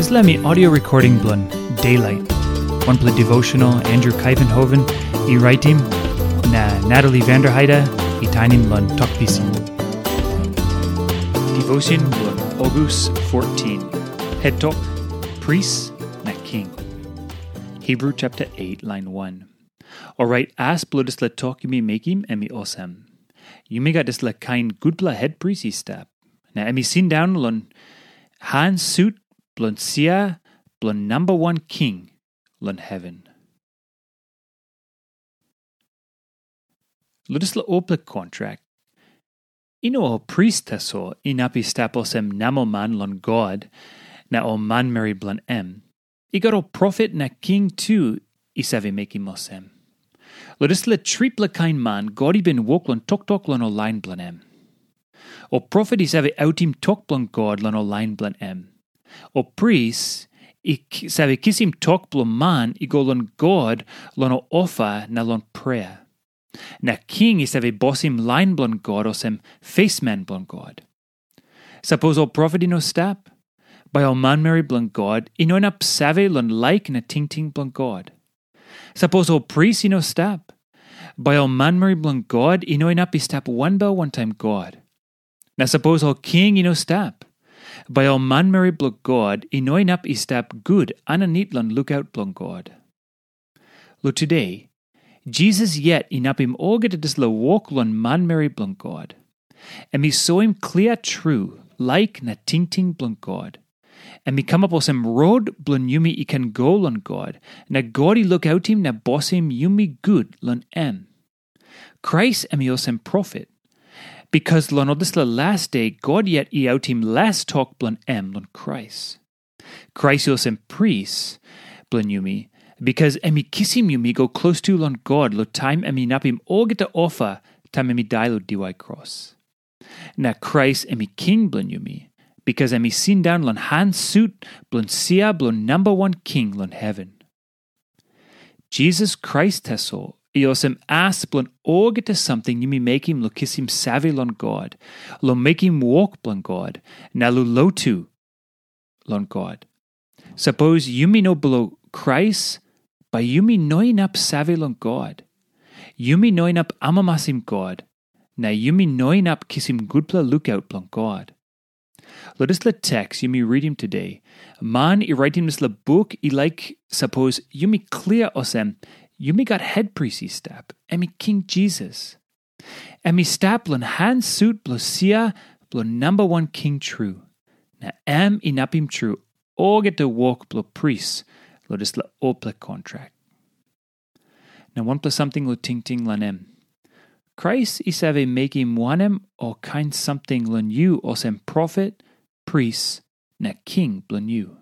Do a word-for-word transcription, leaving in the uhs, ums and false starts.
Dispela mi audio recording bilong Daylight, wanpela devotional Andrew Kaivenhoven i raitim, na Natalie Vanderheide i tainim long Tok Pisin. Devotion bilong August fourteen. Het tok, Pris na King. Hebrew chapter eight, line one. Orait as bilong dispela tok yumi mekim em i olsem. Yumi gat dispela kain gutpela hetpris i stap, na em i sindaun long han sut bilong sia bilong namba wan king long heven. Long dispela olpela kontrak, i no ol pris tasol inap i stap olsem namelman long God na ol manmeri bilong em. I gat ol profet na king tu i save mekim olsem. Long dispela tripela kain man God i bin wok long toktok long ol lain bilong em. Ol profet i save autim tok bilong God long ol lain bilong em. Ol pris i save kisim tok bilong man i go long God long ol ofa na long prea. Na king i save bosim lain bilong God olsem fesman bilong God. Sapos ol profet i no stap, bai ol manmeri bilong God i no inap save long laik na tingting bilong God. Sapos ol pris i no stap, bai ol manmeri bilong God i no inap i stap wanbel wantaim God. Na sapos ol king i no stap, bai ol manmeri bilong God i no inap i stap gut aninit long lukaut bilong God. Lo tude, Jisas yet inapim olgeta dispela wok long manmeri bilong God. Em i soim klia tru laik na tingting bilong God. Em i kamap olsem rot bilong yumi i ken go long God, na God i lukautim na bosim yumi gut long em. Krais em i olsem profet, bikas long ol dispela las de God yet i autim las tok bilong em long Krais. Krais i olsem pris bilong yumi, bikas em i kisim yumi go klostu long God long taim em inapim olgeta ofa taim em i dai long diwai kros. Na Krais em i king bilong yumi, bikas em i sindaun long han sut bilong sia bilong namba wan king long heven. Jisas Krais tasol i olsem as bilong olgeta samting yumi mekim long kisim save long God, long mekim wok bilong God, na long lotu long God. Sapos yumi no bilong Krais, bai yumi no inap save long God. Yumi no inap amamasim God, na yumi no inap kisim gutpela lukaut bilong God. Long dispela teks yumi ritim today, man i raitim dispela buk i laik sapos yumi klia olsem, yumi gat hetpris i stap, em i King Jisas. Em i stap long han sut bilong sia bilong namba wan king tru, na em inapim tru olgeta wok bilong pris long dispela olpela kontrak. Na wanpela samting long tingting long em. Krais i save mekim wanem ol kain samting long yu olsem profet, pris, na king bilong yu?